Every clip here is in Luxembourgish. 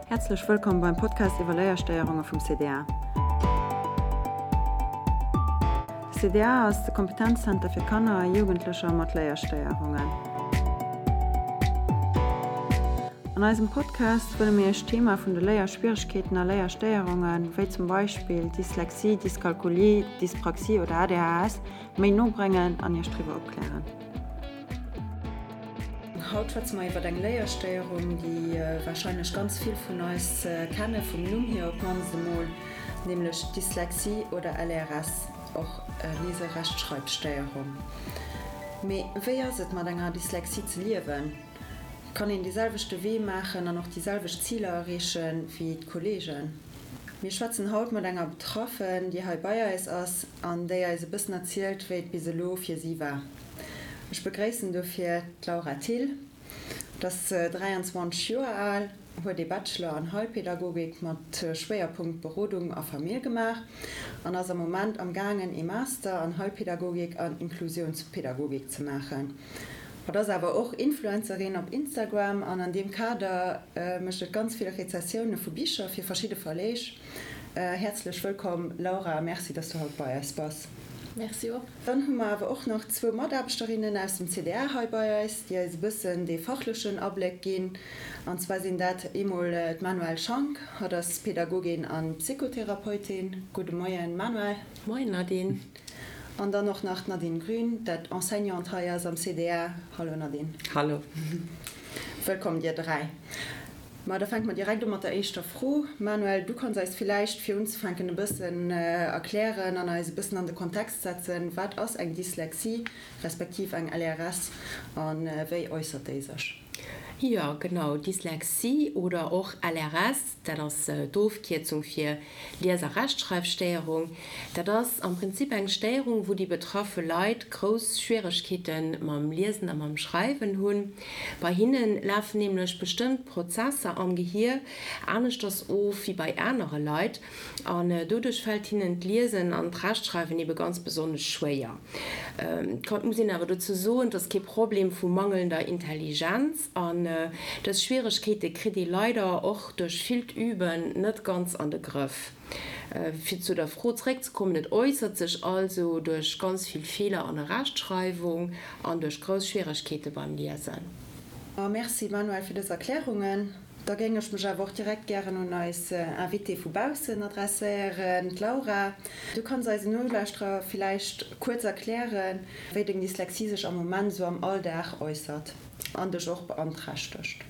Häerzlech wëllkomm beim Podcast iwwer Léierstéierunge vum CDA. De CDA ass de Kompetenzzenter fir Kanner a Jugendlecher mat Léierstéierungen. An eisem Podcast wëlle mir Iech d'Thema vun de Léierschwieregkeeten a Léierstéierungen, wéi zum Beispill Dyslexie, Dyskalkulie, Dyspraxie oder ADHS, méi no bréngen an Iech driwwer opklären. Haut schwätze mer iwwer eng Léierstéierung, déi warscheinlech ganz vill vun eis kenne vum Numm hier op d'mannst emol, nämlech d'Dyslexie oder LRS, och Liese-Rechtschreibstéierung. Mee wéi ass et mat enger Dyslexie ze liewen? Kann een dee selwechte Wee maachen an och déi selwecht Ziler erreeche wéi d'Kolleegen? Mir schwätzen haut mat enger Betraffen, déi hei bei eis ass an déi eis e bëssen erzielt, wéi et bis elo fir si war. Ech begréissen dofir d'Laura Thill. Et ass 23 Joer al, huet ee Bachelor an Heilpädagogik mat Schwéierpunkt Berodung a Famill gemaach an ass am Moment am gaangen ee Master an Heilpädagogik an Inklusiounspädagogik ze maachen. Hatt ass awer och Influencerin op Instagram an an deem Kader mécht et ganz vill Rezessioune vu Bicher fir verschidde Verleeg. Häerzlech wëllkomm Laura a Merci, dass du haut bei eis bass. Merci och. Dann hu mer awer och nach zwou Mataarbechterinnen aus dem CDA hei bei eis, déi eis e bëssen dee fachlechen Abléck ginn. An zwar sinn dat eemol d'Manuelle Schank, hatt ass Pädagogin a Psychotherapeutin. Gudde Moien Manuelle. Moien Nadine. An dann och nach d'Nadine Grün, dat Enseignante hei ass am CDA. Hallo Nadine. Hallo. Wëllkomm dir 3. Ma da fänke mer direkt u mat der éischter Fro. Manuel, du kanns eis villäicht fir unzefänken e bëssen erklären an eis e bëssen an de Kontext setzen, wat ass eng Dyslexie respektiv eng LRS a wéi äussert déi sech? Jo, genau, Dyslexie oder och LRS, Dat ass d'Ofkierzung fir Lies a Rechtschreifstéierung. Dat ass am Prinzip eng Stéierung, wou déi betraffe Leit grouss Schwieregkeete mam Liesen a mam Schreiwen hunn. Bei hinne lafen nämlech bestëmmt Prozesser am Gehier aneschters of wéi bei anere Leit an doduerch fält hinnen d'Liesen an d'Rechtschreiwen ebe ganz besonnesch schwéier. Et muss een awer dozou soen, et ass kee Problem vu mangelnder Intelligenz. An dës Schwieregkeete kritt ee leider och duerch villt Üben net ganz an de Grëff. Fir zu der Fro zeréckzekommen, et äussert sech also duerch ganz vill Feeler an der Rechtschreiwung an duerch grouss Schwieregkeete beim Liesen. Merci Manuel fir dës Erklärungen. Da géing ech mech awer och direkt gären un eis Invitée vu baussen adresséieren, d'Laura. Du kanns eisen Nolauschterer villäicht kuerz erklären, wéi deng Dyslexie sech am Moment esou am Alldag äussert. An dech och beanträchtegt.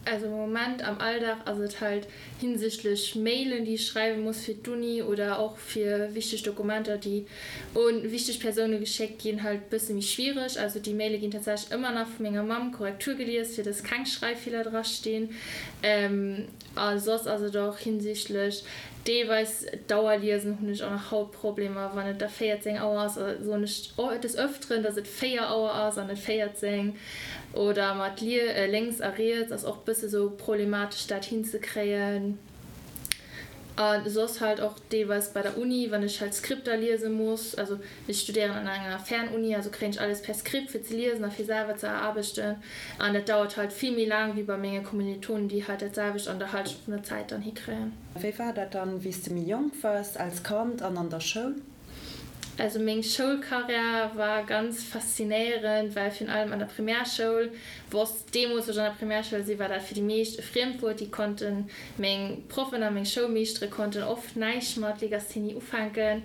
Also am Moment am Alldag ass et halt hinsichtlech Mailen déi ech schreiwe muss fir d'Uni oder och fir wichteg Dokumenter déi un wichteg Persoune geschéckt ginn halt bësse méi schwiereg. Also déi Maile ginn tatsächlech ëmmer nach vu menger Mamm Korrektur gelies fir dass keng Schreiffeeler dra stinn. A soss ass et och hinsichtlech deelweis d'Auer liesen hunn ech och nach haut Problemer. Wann et da 14 Auer ass, soen ech des Ëfteren, dass et 4 Auer ass an net 14. Oder mat lénks a riets ass och bësse sou problematesch dat hinzekréien. A soss halt och deelweis bei der Uni, wann ech halt Skripter liese muss. Also ech studéieren an enger Fernuni, also kréien ech alles per Skript fir ze liesen a fir selwer ze erarbechten. An dat dauert halt vill méi laang wéi bei menge Kommilitonen, déi halt dat selwecht an der Halschent vun der Zäit dann hikréien. Wéi war dat dann, wéi s de méi jonk wars, als Kand an an der Schoul? Also meng Schoulkarriär war ganz faszinéierend, well virun allem an der Primärschoul wosst, deemools wou ech an der Primärschoul si war dat fir déi meescht e Friemdwuert, déi konnten, meng Proffen a meng Schoulmeeschtere konnten oft näischt mat Legasthenie ufänken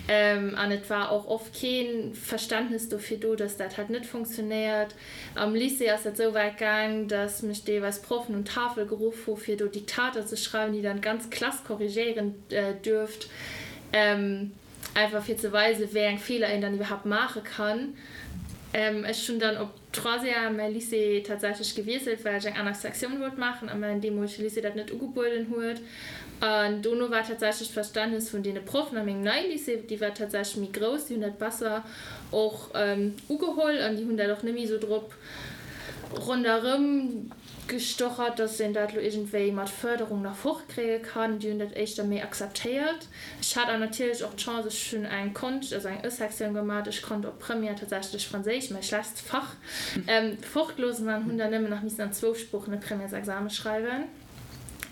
an et war och oft kee Verständnes dofir do, dass dat halt net funktionéiert. Am Lycée ass dat sou wäit gaang, dass mech deelweis Proffen un d'Tafel geruff hu fir do Diktater ze schreiwen, déi dann d'ganz Klass korrigéieren duerft, einfach fir ze weisen, wéi eng Feeler een dann iwwerhaapt maache kann. Ech hunn dann op Troisième mäi Lycée tatsächlech gewiesselt, well ech eng aner Sektioun wollt maachen a mäin deemolege Lycée dat net ugebueden huet. An dono war tatsächlech d'Verständnes vun deene Proffen a mengem neie Lycée, déi war tatsächlech méi grouss, déi hunn dat besser och ugeholl an déi hunn dat och net méi esou drop ronderëm gestochert, dass een dat elo iergendwéi mat Fërderung nach fortkréie kann. Déi hunn dat éischter méi akzeptéiert. Ech hat awer natierlech och d'Chance, ech hunn eng Konscht, also eng Ë-Sektioun gemaat, ech konnt op Première tatsächlech Franséisch, mäi schlechtst Fach, fortloossen an hunn dann nëmmen nach missen an zwou Sproochen e Premièresexame schreiwen.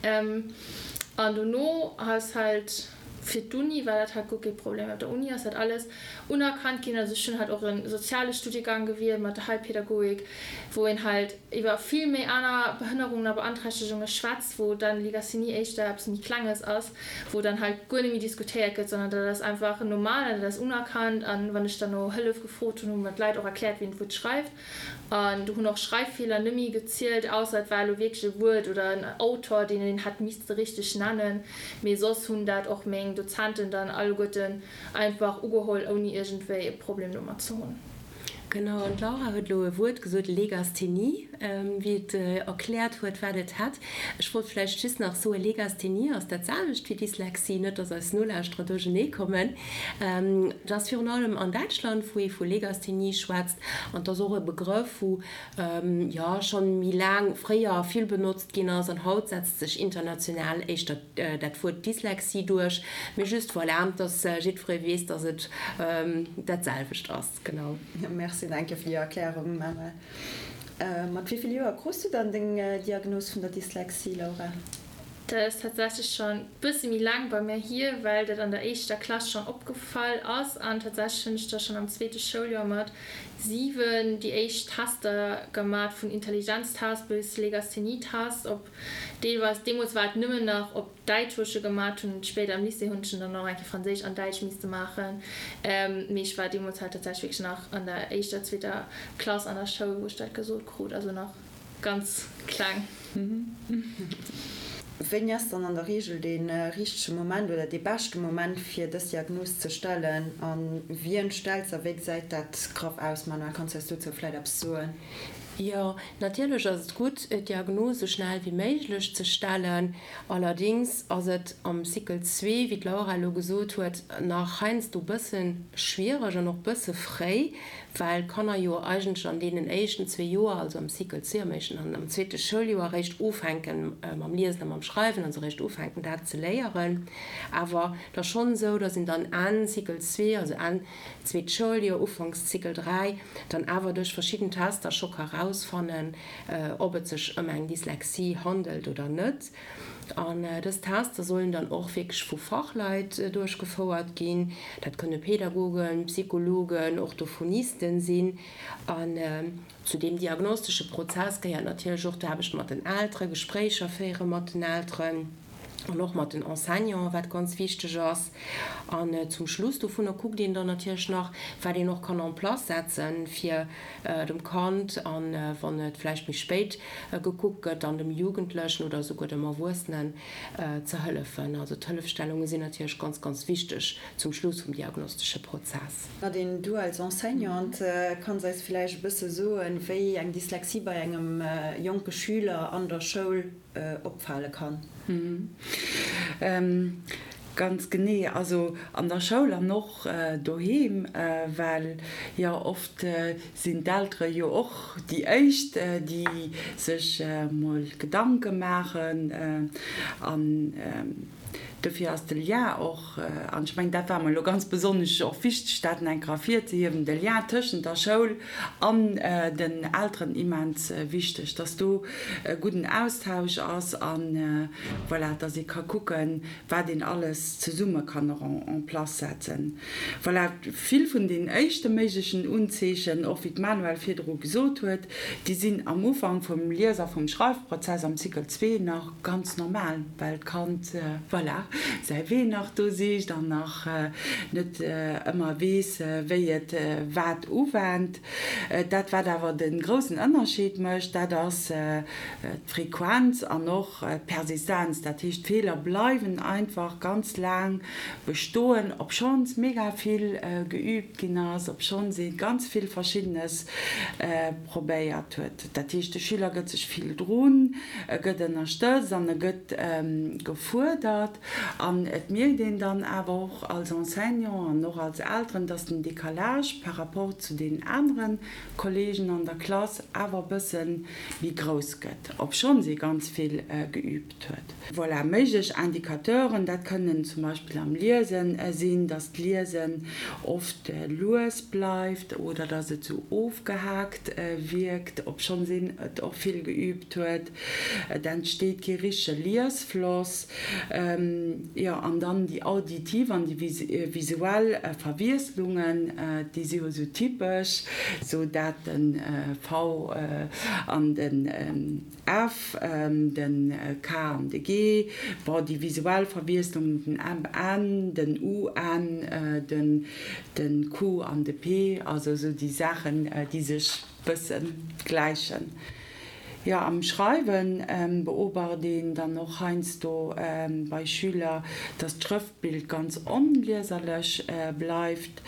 An dono ass halt fir d'Uni war dat halt guer kee Problem. Op der Uni ass dat alles unerkannt ginn. Also ech hunn halt och e soziale Studiegang gewielt mat der Heilpädagogik, wou een halt iwwer vill méi aner Behënnerungen a Beanträchtegunge schwätzt, wou dann Legasthenie éischter eppes méi Klenges ass, wou dann halt guer net méi diskutéiert gëtt, sondern dat ass einfach normal an dat ass unerkannt. An wann ech dann no Hëllef gefrot hunn, hu mer d'Leit och erkläert, wéi een d'Wuert schreift. An do hunn och Schreiffeeler nëmme gezielt, ausser et war elo wierklech e Wuert oder en Autor, deen een hätt misste richteg nennen. Mee soss hunn dat och meng Dozenten dann alleguerten einfach ugeholl, ouni iergendwéi e Problem domat ze hunn. Genau, an d'Laura huet elo e Wuert gesot, Legasthenie, wéi et erkläert huet, wat et hätt. Ech wollt vläicht just nach soen, Legasthenie ass dat selwecht wéi Dyslexie, net dass eis Nolauschterer duerchenee kommen. Et ass virun allem an Däitschland, wou ee vu Legasthenie schwätzt. An et ass och e Begrëff, wou, jo, schonn méi laang, fréier vill benotzt ginn ass. An haut setzt sech international éischter dat Wuert Dyslexie duerch. Mee just, voilà, dass jiddweree weess, dass et dat selwecht ass. Genau. Merci, danke fir déi Erklärung, Manuel. Mat wéi vill Joer krus du dann deng Diagnos vun der Dyslexie, Laura? Dat ass tatsächlech schonn bësse méi laang bei mär hier, well dat an der éischter Klass schonn opgefall ass. An tatsächlech hunn ech da schonn am zweete Schouljoer mat 7 déi éischt Tester gemat, vun Intelligenztest bis Legasthenietest, op deelweis, deemools war et nëmmen nach op Däitsch, wou ech e gemat hunn. Spéider am Lycée hunn ech en dann och eng Kéier Franséisch an Däitsch misste maachen. Mee ech war deemools halt tatsächlech wierklech nach an der éischter, zweeter Klass an der Schoul, wou ech dat gesot krut, also nach ganz kleng. Wéini ass dann an der Reegel dee richtege Moment oder dee beschte Moment fir dës Diagnos ze stellen a wien stellt se a wéi gesäit dat graff aus? Manuel, kanns du eis dozou vläit eppes soen? Jo, natierlech ass et gutt, d'Diagnos esou schnell wéi méiglech ze stellen. Allerdings ass et am Cycle zwee, wéi d'Laura elo gesot huet, nach heiansdo bësse schwiereg an och bësse fréi, well d'Kanner jo eigentlech an deenen éischten zwee Joer, also am Cycle zwee, am éischten an am zweete Schouljoer eréischt ufänke mam Liesen a mam Schreiwen, also eréischt ufänken dat ze léieren. Awer et ass schonn esou, datt een dann Enn Cycle zwee, also Enn zweet Schouljoer, Ufanks Cycle 3, dann awer duerch verschidden Tester scho ka rausfannen, ob et sech ëm eng Dyslexie handelt oder net. An dës Tester sollen dann och wierklech vu Fachleit duerchgefouert ginn. Dat kënne Pädagogen, Psychologen, Orthophonisten sinn. An zu deem diagnostesche Prozess gehéiert natierlech och d'Aarbecht mat den Elteren, Gespréicher féiere mat den Elteren an och mat den Enseignanten, wat ganz wichteg ass. An zum Schluss dovunner kuckt een dann natierlech nach, wat een och kann en place setzen, fir dem Kand an, wann et vläicht méi spéit gekuckt gëtt, dann dem Jugendlechen oder esouguer dem Erwuessenen ze hëllefen. Also d'Hëllefstellunge sinn natierlech ganz, ganz wichteg zum Schluss vum diagnostesche Prozess. Nadine, du als Enseignante kanns eis vläicht e bësse soen, wéi eng Dyslexie bei engem jonke Schüler an der Schoul opfale kann? Ganz genee, also an der Schoul an och doheem, well jo oft sinn d'Eltere jo och déi éischt, déi sech mol Gedanke maachen an dofir ass de Lien och, an ech mengen dat war mer elo ganz besonnesch och wichteg, dat nach eng Kéier ervirzehiewen, de Lien tëschent der Schoul an den Elteren immens wichteg, dass do e gudden Austausch ass an voilà, dass ee ka kucken, wat een alles zesumme kann och en place setzen. Voilà, vill vun den éischte méiglechen Unzeechen, och wéi d'Manuel virdru gesot huet, déi sinn am Ufank vum Lies a vum Schreifprozess am Cycle zwee nach ganz normal, well d'Kand, voilà, säi Wee nach do sicht an nach net ëmmer weess, wéi et wat uwennt. Dat, wat awer de groussen Ënnerscheed mécht, dat ass d'Frequenz an och d'Persistenz. Dat heescht, d'Feeler bleiwen einfach ganz laang bestoen, obschonns mega vill geüübt ginn ass, obschonns ee ganz vill Verschiddenes probéiert huet. Dat heescht, de Schüler gëtt sech vill drun, e gëtt ënnerstëtzt an e gëtt gefuerdert. An et mierkt een dann awer och als Enseignant an och als Elteren, dass den Décalage par rapport zu deenen anere Kollegen an der Klass awer e bësse méi grouss gëtt, obschonns ee ganz vill geübt huet. Voilà, méiglech Indicateuren, dat kënnen zum Beispill am Liesen sinn, dass d'Liesen oft lues bleift oder dass et sou ofgehaakt wierkt, obschonns een et och vill geübt huet. Et entsteet kee richtege Liesfloss. Jo, an dann déi auditiv an déi visuell Verwiesslungen, déi si jo sou typesch, sou dat de V an den F, den K an de G, bon, déi visuell Verwiesslungen, den M, N, den U, N, den Q an de P, also sou déi Saachen, déi sech bësse gläichen. Jo, am Schreiwe beobacht een dann och heiansdo bei Schüler, dass d'Schrëftbild ganz onlieserlech bleift.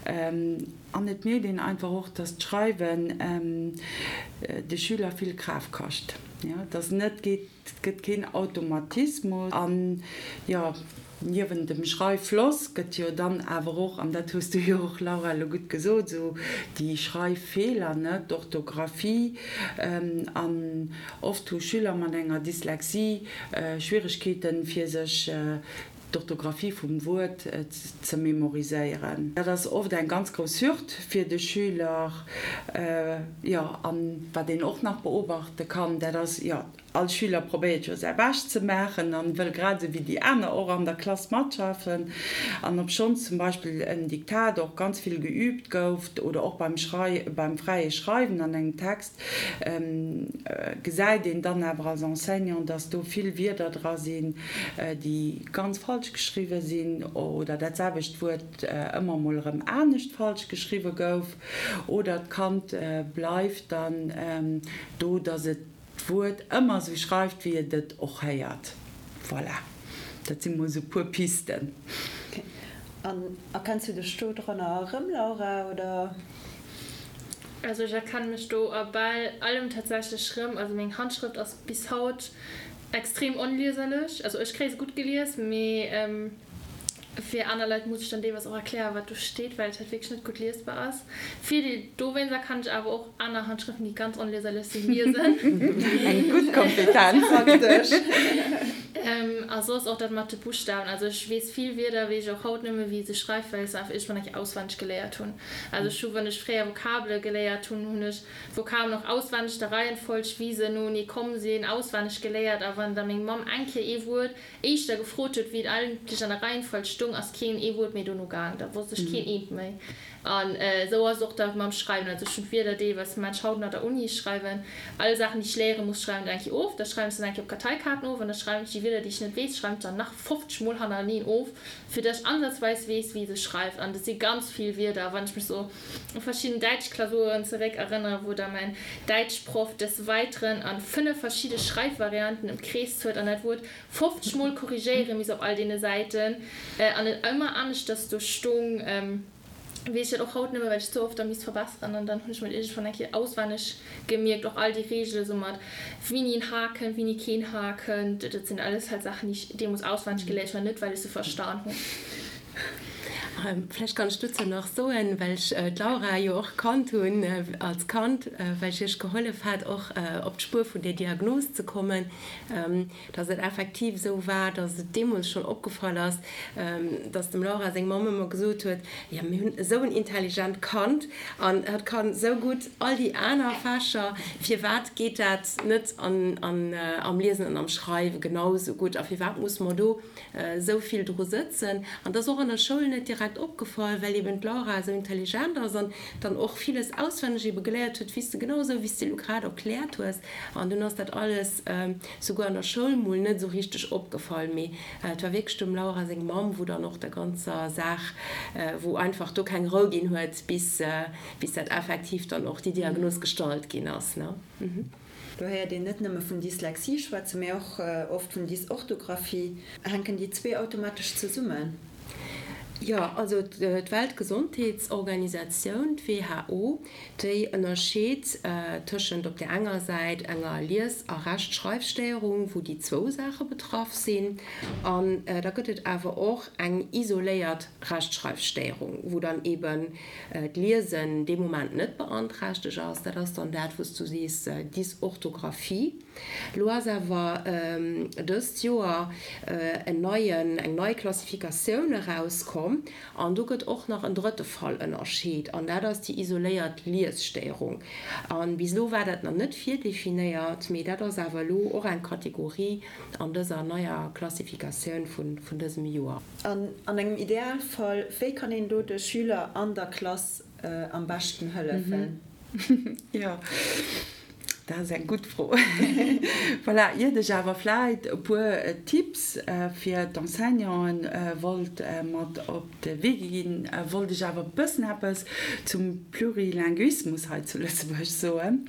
An et mierkt een einfach och, dass d'Schreiwen de Schüler vill Kraaft kascht, dass net geet, Et gëtt keen Automatismus. An, jo, niewent dem Schreiffloss gëtt jo dann awer och, an dat hues du jo och, Laura, elo gutt gesot, esou déi Schreiffeeler, ne, d'Orthografie. An oft hu Schüler mat enger Dyslexie Schwieregkeeten, fir sech d'Orthografie vum Wuert ze memoriséieren. Dat ass oft eng ganz grouss Hürd fir de Schüler. Jo, an wat een och nach beobachte kann, dat ass, jo, all Schüler probéiert jo säi Bescht ze maachen an wëll grad esou wéi déi aner och an der Klass matschaffen. An obschonns zum Beispill en Diktat och ganz vill geüübt gouf oder och beim Schrei beim fräie Schreiwen an engem Text, gesäit een dann awer als Enseignant, dass do vill Wierder dra sinn, déi ganz falsch geschriwwe sinn oder dat selwecht Wuert ëmmer mol erëm anescht falsch geschriwwe gouf oder d'Kand bleift dann do, dass et d'Wuert ëmmer esou schreift, wéi et et och héiert. Voilà, dat si mol esou e puer Pisten. Ok. An erkenns du dech do dranner erëm, Laura, oder? Also ech erkennen mech do a bal allem tatsächlech rëm. Also meng Handschrëft ass bis haut extrem onlieserlech. Also ech kréie se gutt gelies, mee fir aner Leit muss ech dann deelweis och erklären, wat do steet, well et halt wierklech net gutt liesbar ass. Virdeel dowéinster kann ech awer och aner Handschrëften, déi ganz onlieserlech sinn, liesen. Eng gutt Kompetenz. Praktesch. A soss och dat mat de Buschtawen. Also ech weess vill Wierder, weess ech och haut net méi, wéi ee se schreift, well ech se einfach iergendwann eng Kéier auswenneg geléiert hunn. Also ech hu wann ech fréier Vokabele geléiert hunn, hunn ech Vokabelen och auswenneg, der Reihenfolg wéi se noenee komm sinn, auswenneg geléiert. A wann da meng Mamm eng Kéier ee Wuert éischter gefrot huet, wéi et eigentlech an der Reihenfolg stung, ass keen ee Wuert méi dono gaang. Da wosst ech keen eent méi. An esou ass et och da mam Schreiwen. Also ech hunn d'Wierder deelweis, mat ech haut nach der Uni, ech schreiwen all Saachen, déi ech léiere muss, schreiwen ech eng Kéier of. Da schreiwen ech se dann eng Kéier op Karteikaarten of an da schreiwen ech déi Wierder, déi ech net weess, schreiwen ech dann nach 50 Mol hannereneen of. fir dass ech ansatzweis weess, wéi se schreift. An dat si ganz vill Wierder. Wann ech mech sou u verschidden Däitschklausuren zeréck erënnere, wou da mäin Däitschproff des Weiteren an 5 verschidde Schreifvarianten ëmkreest huet an dat Wuert 50 Mol korrigéiere misst op all deene Säiten an et ëmmer aneschters do stung, weess ech dat och haut nëmme well ech ze oft da misst verbesseren an dann hunn ech mer dat iergendwann eng Kéier auswenneg gemierkt, och all déi Reegele sou mat wini en H kënnt, wini keen H kënnt, dat sinn alles halt Saachen déi ech deemools auswenneg geléiert hunn an net well ech se verstan hunn. Vläicht kann ech dozou nach soen, well ech d'Laura jo och kannt hunn als Kand, well ech iech gehollef hat och op d'Spuer vun där Diagnos ze kommen, dass et effektiv esou war, dass et deemools schonn opgefall ass, dass dem Laura seng Mamm ëmmer gesot huet, Jo, mir hunn esou en intelligent Kand an hatt kann esou gutt all déi aner Fächer, firwat geet dat net am Liesen an am Schreiwe genau esou gutt a firwat musse mer do esou vill dru sëtzen? An et ass och an der Schoul net direkt opgefall, well eben d'Laura esou intelligent ass an dann och villes auswenneg ebe geléiert huet, wéi s de genau esou, wéi s de elo grad erkläert hues. An dunn ass dat alles souguer an der Schoul mol net esou richteg opgefall, mee et war wierklech dem Laura seng Mamm, wou dann och der ganzer Saach, wou einfach do keng Rou ginn huet, bis bis dat effektiv dann och déi Diagnos gestallt ginn ass, ne. Do héiert een net nëmme vun Dyslexie schwätzen, mee och oft vun Dysorthographie. Hänken déi zwee automatesch zesummen? Jo, also d'Weltgesondheetsorganisatioun, d'WHO, déi ënnerscheet tëschent op där enger Säit enger Lies a Rechtschreifstéierung, wou déi zwou Saache betraff sinn, an da gëtt et awer och eng isoléiert Rechtschreifstéierung, wou dann eeben d'Liesen dee Moment net beanträchtegt ass. Dat ass dann dat, wou s du sees, Dysorthographie. Lo ass awer dëst Joer en neien, eng nei Klassifikatioun erauskomm an do gëtt och nach en drëtte Fall ënnerscheet an dat ass déi isoléiert Liesstéierung. A bis elo war dat nach net virdefinéiert, mee dat ass awer elo och eng Kategorie an dëser neier Klassifikatioun vun dësem Joer. An an engem Idealfall, wéi kann een do de Schüler an der Klass am beschten hëllefen? Jo, dat ass eng gutt Fro. Voilà, iert ech awer vläit e puer Tipps fir d'Enseignanten wollt mat op de Wee ginn, wollt ech awer e bëssen eppes zum Plurilinguismus hei zu Lëtzebuerg soen,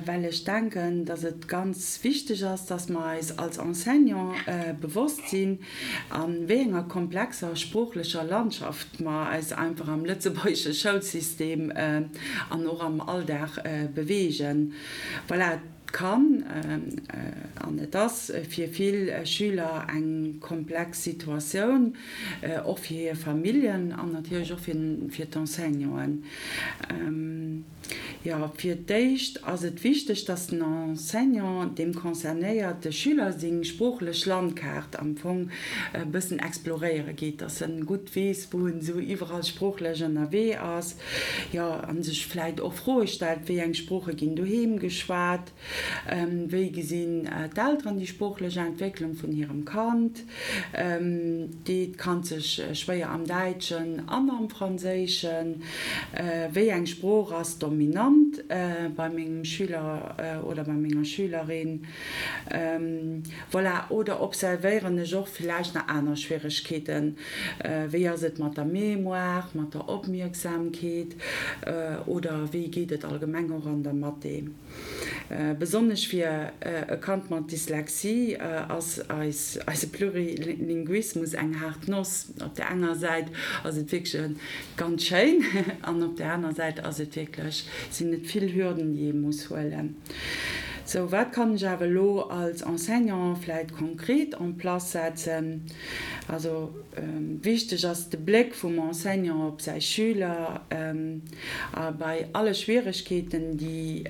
well ech denken, dass et ganz wichteg ass, dass mer eis als Enseignant bewosst sinn, A wéi enger komplexer sproochlecher Landschaft mer eis einfach am lëtzebuergesche Schoulsystem an och am Alldag beweegen. Voilà, et kann an et ass fir vill Schüler eng komplex Situatioun, och fir hir Familljen an natierlech och fir d'Enseignanten. Jo, fir d'éischt ass et wichteg, dass den Enseignant deem concernéierte Schüler seng sproochlech Landkaart am Fong e bëssen exploréiere geet, dass en gutt weess, wou en esou iwwerall sproochlech ënnerwee ass, jo, a sech vläit och Froe stellt, wéi eng Sprooche ginn doheem geschwat, Wéi gesinn d'Elteren déi sproochlech Entwécklung vun hirem Kand? Deet d'Kand sech schwéier am Däitschen an am Franséischen? Wéi eng Sprooch ass dominant bei mengem Schüler oder bei menger Schülerin? Voilà, oder observéieren ech och villäicht nach aner Schwieregkeeten? Wéi ass et mat der Mémoire, mat der Opmierksamkeet oder wéi geet et allgemeng och an der Mathé? Besonnesch fir e Kand mat Dyslexie ass eise Plurilinguismus eng haart Noss. Op der enger Säit ass et wierklech ganz schéin an op der aner Säit ass et wierklech, sinn et vill Hürden, déi ee muss huelen. Sou, wat kann ech awer elo als Enseignant vläit konkret en place setzen? Also wichteg ass de Bléck vum Enseignant op säi Schüler. A bei alle Schwieregkeeten, déi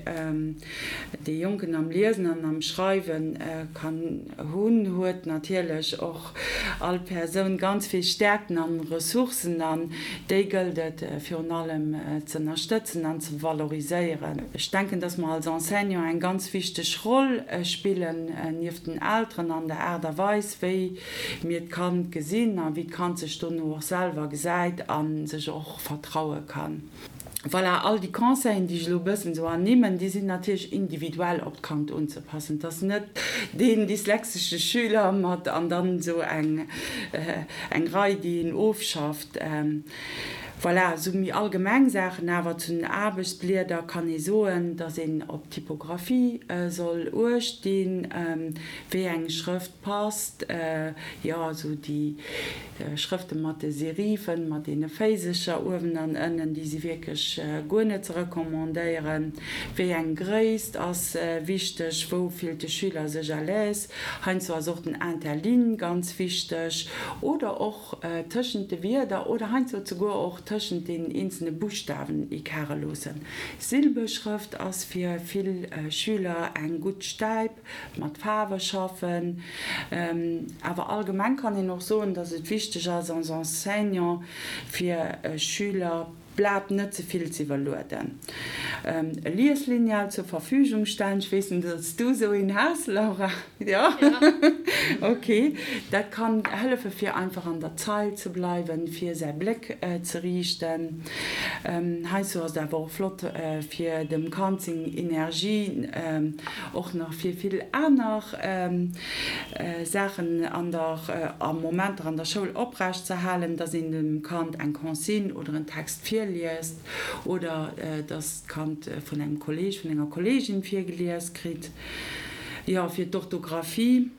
dee Jonken am Liesen an am Schreiwe kann hunn, huet natierlech och all Persoun ganz vill Stäerkten an Ressourcen an déi gëllt et virun allem z'ënnerstëtzen an ze valoriséieren. Ech denken, dass mer als Enseignant eng ganz wichteg Roll spillen, nieft den Elteren, an der Aart a Weis, wéi mir d'Kand gesinn a wéi d'Kand sech dono och selwer gesäit a sech och vertraue kann. Voilà, all déi Conseillen, déi ech elo e bëssen esou ernimmen, déi sinn natierlech individuell op d'Kand unzepassen. Et ass net deen dyslexesche Schüler mat an dann esou eng eng Rei, déi een ofschafft. Voilà, esou méi allgemeng Saachen awer zu den Aarbechtsblieder kann ee soen, dass een op d'Typographie soll uecht dinn, wéi eng Schrëft passt, jo, esou déi Schrëfte mat de Serifen, mat deene Féisecher uewen an ënnen, déi si wierklech guer net ze recommandéieren. Wéi eng Gréisst ass wichteg, wou fillt de Schüler sech à l'aise? Heiansdo ass och den Interligne ganz wichteg oder och tëschent de Wierder oder heiansdo zeguer och tëschent den eenzelne Buschtawen Ecarte loossen. Silbeschrëft ass fir vill Schüler eng gutt Stäip. Mat Faarwe schaffen. Awer allgemeng kann een och soen, dass et wichteg ass als Enseignant fir Schüler d'Blat net ze vill ze iwwerlueden. E Lieslineal zur Verfügung stellen. Ech weess net, ob s du esou een has, Laura? Jo? Ok. Dat kann hëllefe fir einfach an der Zeil ze bleiwen, fir säi Bléck ze riichten. Heiansdo ass et awer och flott fir dem Kand seng Energie och nach fir vill aner Saachen an der, a Momenter an der Schoul oprecht ze halen, dass een dem Kand eng Consigne oder en Text virliest oder dass d'Kand vun engem Kolleg, vun enger Kollegin virgelies kritt. Jo, fir d'Orthografie.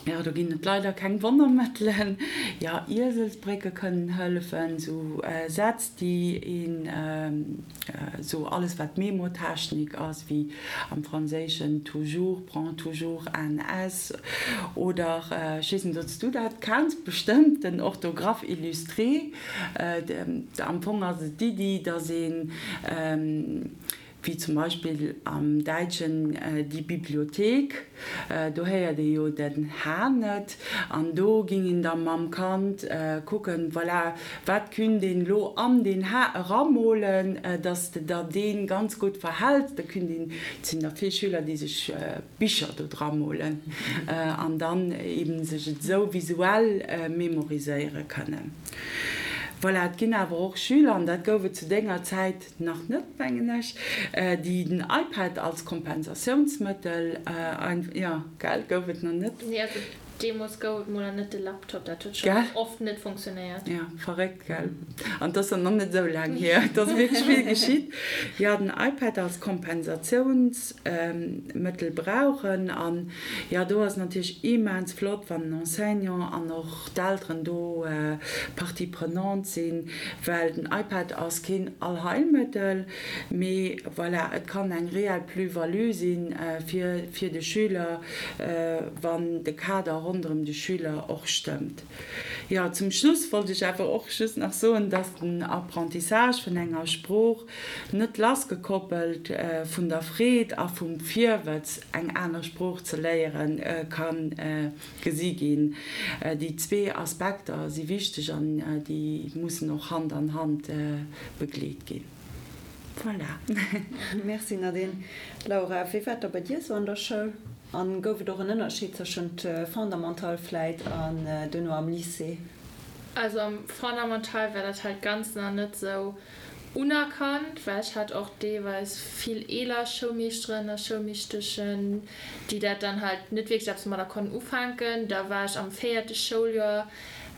Jo, do ginn et leider keng Wonnermëttelen. Jo, Ieselsbrécke kënnen hëllefen, sou Sätz, déi een, sou alles wat Memotechnik ass, wéi am Franséischen toujours, prends toujours un S oder, ech weess net, ob s du dat kenns, bestëmmt, den Orthographe illustré. Am Fong ass et d'Iddi, datt een, wéi zum Beispill am Däitschen die Bibliothek, do héiert ee jo den H net, an do ging een da mam Kand kucken, voilà, wat künt een elo an deen H eramolen, dass de der dee ganz gutt verhäls. Da künt een, et sinn der vill Schüler, déi sech Bicher do dra molen an dann eben sech et esou visuell memoriséiere kënnen. Voilà, et ginn awer och Schüler, an dat gouf et zu denger Zäit nach net, mengen ech, déi den iPad als Kompensatiounsmëttel, jo, gell, gouf et nach net? Nee, also deemools gouf et mol nach net de Laptop, dat huet schonn oft net funktionéiert. Jo, verréckt, gell? An 't ass dann nach net esou laang hier, et ass wierklech vill geschitt. Jo, den iPad als Kompensatiounsmëttel brauchen. An jo, do ass et natierlech immens flott, wann den Enseignant an och d'Elteren do Partie prenante sinn, well den iPad ass keen Allheilmëttel, mee voilà, et kann eng reell Plus-value si fir fir de Schüler, wann de Kader ronderëm de Schüler och stëmmt. Jo, zum Schluss wollt ech awer och just nach soen, dass den Apprentissage vun enger Sprooch net lassgekoppelt vun der Freed a vum Virwëtz, eng aner Sprooch ze léieren, ka gesi ginn. Déi zwee Aspekter si wichteg an déi mussen och Hand an Hand begleet ginn. Voilà. Merci Nadine. Laura, wéi war et da bei dir esou an der Schoul? An gouf et och en Ënnerscheed tëschent Fondamental vläit an duerno am Lycée? Also am Fondamental war dat halt ganz nach net sou unerkannt, well ech hat och deelweis vill eeler Schoulmeeschteren a Schoulmeeschteschen, déi dat dann halt net wierklech eppes domadder konnten ufänken. Da war ech am véierte Schouljoer,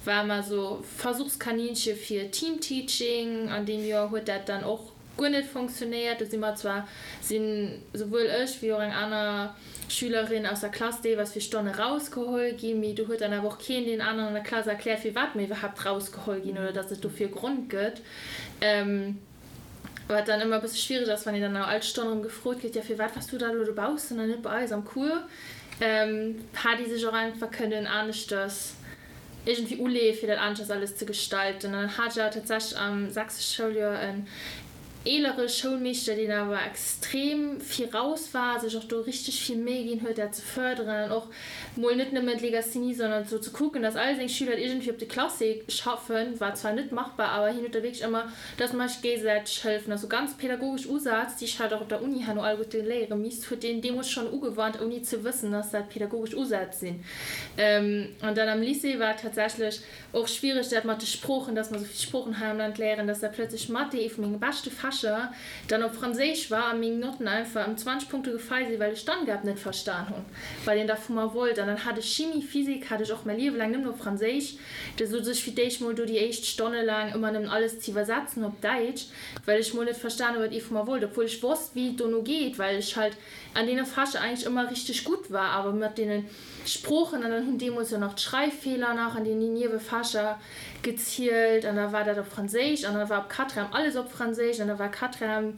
war mer sou Versuchskaninche fir Teamteaching. An deem Joer huet dat dann och guer net fonctionnéiert. Do si mer zwar, sinn souwuel ech wéi och eng aner Schülerin aus der Klass deelweis fir Stonne rausgeholl ginn, mee do huet dann awer och keen deen aneren an der Klass erkläert, firwat mer iwwerhaapt rausgeholl ginn oder dass et dofir e Grond gëtt. Wat dann ëmmer e bësse schwiereg ass, wann een dann no all Stonn erëm gefrot gëtt, jo firwat waars du da elo dobaussen an net bei eis am Cours? Hat ee sech och einfach kënnen aneschters iergendwéi uleeë fir dat aneschters alles ze gestalten. An dann hat ech awer tatsächlech am sechste Schouljoer en eelere Schoulmeeschter, deen awer extrem viraus war, sech och do richteg vill Méi ginn huet, dat ze fërderen an och mol net nëmmen d'Legasthenie, sondern sou ze kucken, dass all seng Schüler et iergendwéi op de Classé schaffen, war zwar net machbar, awer hien huet da wierklech ëmmer, dass mer sech géigesäiteg hëllefen. Also ganz pädagogesch Usaz, déi ech halt och op der Uni herno alleguerte léiere misst, huet deen deemools schonn ugewannt, ouni ze wëssen, dass dat pädagogesch Usätz sinn. An dann am Lycée war et tatsächlech och schwiereg, dat mat de Sproochen, dass mer esou vill Sproochen hei am Land léieren, dass da plötzlech Mathé, ee vu menge beschte Fächer, dann op Franséisch war a meng Notten einfach ëm 20 Punkte gefall sinn, well ech d'Angabe net verstan hunn, wat een da vu mer wollt. An dann hat ech Chimie, Physik hat ech och mäi Liewe laang nëmmen op Franséisch. Da souz ech fir d'éischt mol do déi éischt Stonne laang ëmmer nëmmen alles ze iwwersetzen op Däitsch, well ech mol net verstan hunn, wat ee vu mer wollt, obwuel ech wosst, wéi et dono geet, well ech halt an deene Fächer eigentlech ëmmer richteg gutt war, awer mat deene Sproochen, an dann hunn deemools jo nach d'Schreiffeeler nach an deenen Niewefächer gezielt, an da war dat op Franséisch, an da war op Quatrième alles op Franséisch, an da war Quatrième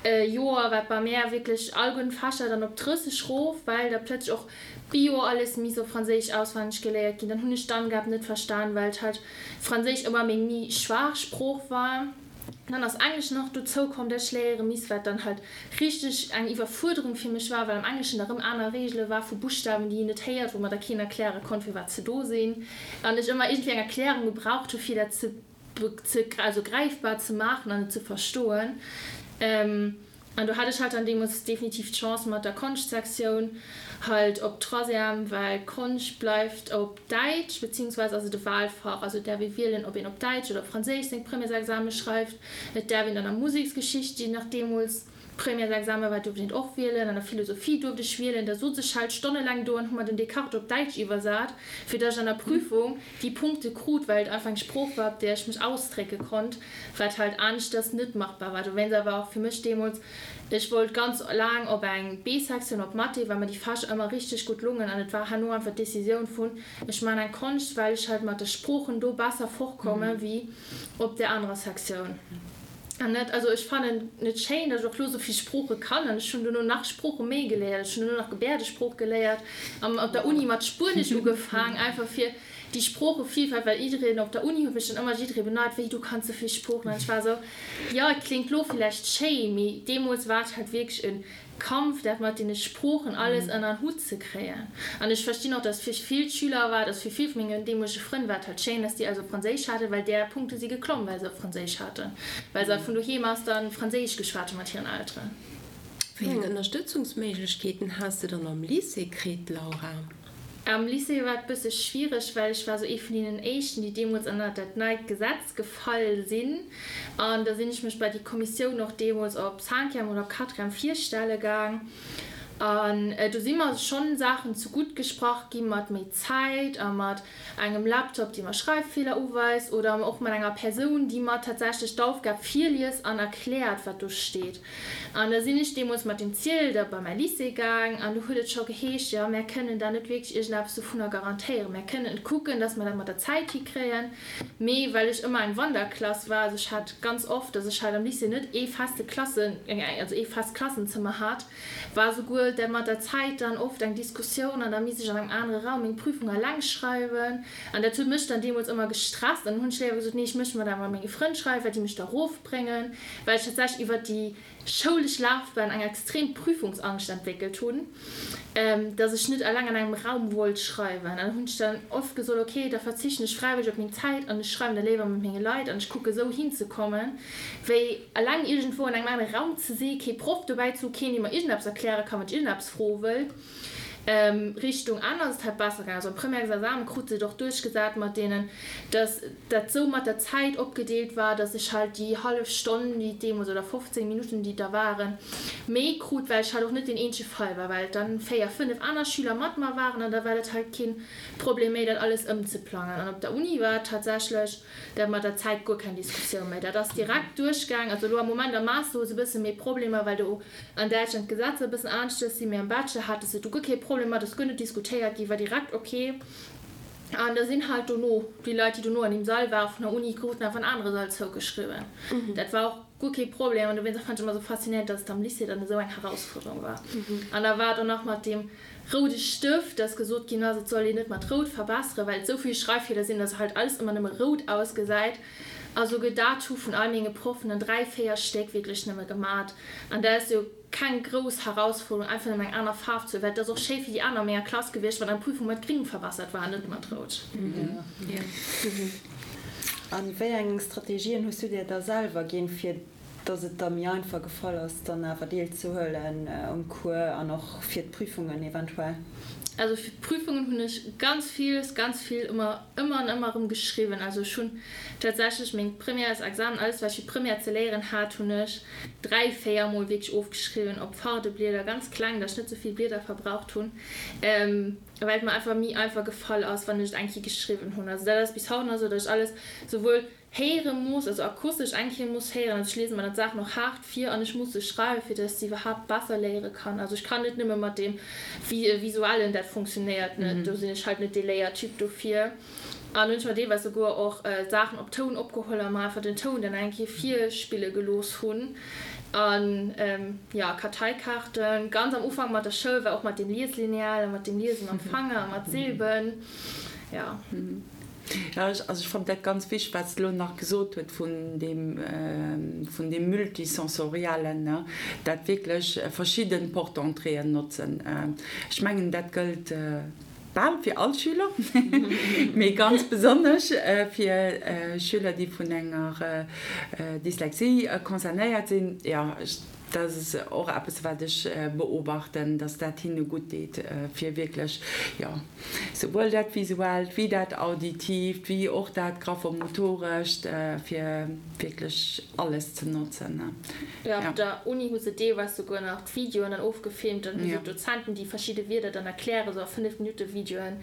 Joer war bei mär wierklech all gudden Fächer dann op 30 rof, well da plëtzlech och Bio alles misst op Franséisch auswenneg geléiert ginn. Dann hunn ech d'Angab net verstan, well halt Franséisch ëmmer meng méi schwaach Sprooch war. Dann ass Englesch nach dozou komm, dat ech léiere misst, wat dann halt richteg eng Iwwerfuerderung fir mech war, well am Engleschen da rëm aner Reegele war vu Buschtawen, déi een net héiert, wou mer da keen erkläre konnt, firwat se do sinn, an ech ëmmer iergendwéi eng Erklärung gebraucht hu fir dat ze, ze, also gräifbar ze maachen an et ze verstoen. An do hat ech halt dann deemools definitiv d'Chance mat der Konschtsektioun halt op Troisième, well Konscht bleift op Däitsch, beziehungsweise ass et e Wahlfach, also et däerf ee wielen, ob een op Däitsch oder op Franséisch seng Premièresexame schreift. Et däerf een dann a Museksgeschicht, déi nach deemools. Premièresexamen war, duerft een et och wielen, an der Philosophie duerft ech wielen. Da sot ech halt stonnelaang do an hu mer den Descartes op Däitsch iwwersat, fir datt ech an der Prüfung déi Punkte krut, well et einfach eng Sprooch war, op där ech mech ausdrécke konnt, wat halt aneschters net machbar war. Dowéinst awer och fir mech deemools, ech wollt ganz laang op eng B-Sektioun op Mathé, well mer déi Fächer ëmmer richteg gutt lungen an et war herno einfach d'Decisioun vun, ech maachen eng Konscht, well ech halt mat de Sproochen do besser fortkomme wéi op där anerer Sektioun. An net, also ech fannen et schéin, datt ech och lo sou vill Sprooche kann an ech hunn dono nach Sprooche méi geléiert. Ech hunn dono nach Gebäerdesprooch geléiert an op der Uni mat Spuenesch ugefaang, einfach fir déi Sproochevielfalt, well jiddereen op der Uni huet mech dann ëmmer jidderee beneit, wéi du kanns sou vill Sproochen an ech war sou, jo et kléngt lo villäicht schéi, mee deemools war et halt wierklech e Kampf dat mat deene Sproochen alles ënner en Hutt ze kréien. An ech verstinn och, dass fir vill Schüler war et, also fir vill vu mengen deemolege Frënn war et halt schéin, dass déi also Franséisch haten, well där Punkte si geklomm, well se op Franséisch haten, well se halt vun doheem aus dann Franséisch geschwat hu mat hiren Elteren. Wéi eng Ënnerstëtzungsméiglechkeeten has de dann am Lycée kritt, Laura? Am Lycée war et bësse schwiereg, well ech war sou ee vun deenen éischten, déi deemools ënnert dat neit Gesetz gefall sinn. An da sinn ech mech bei déi Kommissioun och deemools op Cinquième oder op Quatrième virstelle gaang. An do si mer schonn Saachen zegutt gesprach gi mat méi Zäit a mat engem Laptop, dee mer Schreiffeeler uweist oder och mat enger Persoun, déi mer tatsächlech d'Aufgab virliest an erkläert, wat do steet. An da sinn ech deemools mat dem Ziel da bei mäi Lycée gaang an do huet et scho geheescht, jo, mär kënnen da net wierklech iergendeppes dovunner garantéieren. Mär kënnen kucken, dass mer dat mat der Zäit hikréien. Mee well ech ëmmer eng Wanderklass war, also ech hat ganz oft, dass ech halt am Lycée net ee feste Klassen, also ee fest Klassenzëmmer hat, war souguer dat mat der Zäit dann oft eng Diskussioun an da misst ech an engem anere Raum meng Prüfung eleng schreiwen an dat huet mech dann deemools ëmmer gestresst an dann hunn ech léiwer gesot, nee ech mécht mer dat mat menge Frënn schreiwen, well déi mech da rofbréngen, well ech tatsächlech iwwert déi schoulesch Lafbahn eng extrem Prüfungsangscht entwéckelt hunn, dass ech net eleng an engem Raum wollt schreiwen. An dann hunn ech dann oft gesot, okay, da verzichten ech fräiwëlleg op meng Zäit an ech schreiwen da léiwer mat menge Leit an ech kucke sou hinzekommen, wéi eleng iergendwou an engem anere Raum ze si, kee Proff dobäi ze hu, keen dee mer iergendeppes erkläre kann, wann ech iergendeppes froe wëll. Richtung Enn ass et halt besser gaangen. Also am Premièresexamen krut se et och duerchgesat mat deenen, dass dat sou mat der Zäit opgedeelt war, dass ech halt déi hallef Stonn, déi et deemools, oder 15 Minutten, déi et da waren, méi krut, well ech halt och net deen eenzege Fall war, well et dann 4, 5 aner Schüler mat mer waren an da war dat halt keen Problem méi, dat alles ëmzeplangen. An op der Uni war et tatsächlech Dat mat der Zäit, guer keng Diskussioun méi. Dat ass direkt duerchgaang. Also elo am Moment am Master hu se e bësse méi Problemer, well do an Däitschland d'Gesetzer e bëssen aneschters sinn. Mee am Bachelor hate se do guer kee Problem mat, ass guer net diskutéiert ginn, war direkt ok. An da sinn halt dono déi Leit, déi dono an deem Sall waren vun der Uni, kruten einfach en anere Sall zougeschriwwen. Dat war och guer kee Problem. An dowéinst fand ech ëmmer esou faszinéierend, dass et am Lycée dann esou eng Herausfuerderung war. An da war et och nach mat deem roude Stëft, dass gesot ginn ass, et soll een net mat rout verbesseren, well et esou vill Schreiffeeler sinn, dass halt alles ëmmer nëmme rout ausgesäit. A souguer dat hu vun all menge Proffen dann 3, 4 Stéck wierklech nëmme gemat. An dat ass jo keng grouss Herausfuerderung, einfach nëmme eng aner Faarf ze huelen, well et ass och schéi fir déi aner a menger Klass gewiescht, wann eng Prüfung mat gring verbessert war an net mat rout. A wéi eng Strategien hues du dir da selwer ginn, fir dass et der méi einfach gefall ass, dann awer deelzehuelen um Cours an och fir d'Prüfungen eventuell? Also fir d'Prüfungen hunn ech ganz villes, ganz vill ëmmer, ëmmer an ëmmer erëm geschriwwen. Also ech hunn tatsächlech meng Premièresexamen, alles wat ech fir d'Première ze léieren hat, hunn ech 3, 4 mol wierklech ofgeschriwwen op Fardeblieder, ganz kleng, dass ech net sou vill Blieder verbraucht hunn, well et mer einfach méi einfach gefall ass, wann ech et eng Kéier geschriwwen hunn. Also dat ass bis haut nach esou, dass ech alles souwuel héiere muss, also akustesch eng Kéier muss héieren, also ech liese mer dann d'Saachen och haart vir an ech muss se schreiwen, fir dass ech se iwwerhaapt besser léiere kann. Also ech kann net nëmme mat deem Visuellen, dat funktionéiert net, do sinn ech halt net dee Léiertyp dofir. An hunn ech mer deelweis souguer och Saachen op Toun opgeholl a mer einfach den Toun dann eng Kéier virspille gelooss hunn. An jo, Karteikaarten, ganz am Ufank mat der Schoul war och mat dem Lieslineal a mat dem Liese mam Fanger a mat Silben, jo. Jo, also ech fannen dat ganz wichteg, wat s de elo nach gesot huet vun deem, vun deem Multisensoriellen, ne, dat wierklech verschidden Porte-d'entréeën notzen. Ech mengen, dat gëllt bal fir all Schüler, mee ganz besonnesch fir Schüler, déi vun enger Dyslexie concernéiert sinn. Jo, ech. Dat ass och eppes, wat ech beobachten, dass dat hinne gutt deet, fir wierklech, jo, souwuel dat Visuellt wéi dat Auditiivt, wéi och dat Graphomotorescht, fir wierklech alles ze notzen. Jo, op der Uni hu se deelweis souguer nach d'Videoen dann ofgefilmt. Dann hu se d'Dozenten, déi verschidde Wierder dann erklären, sou a 5 Minutte Videoen.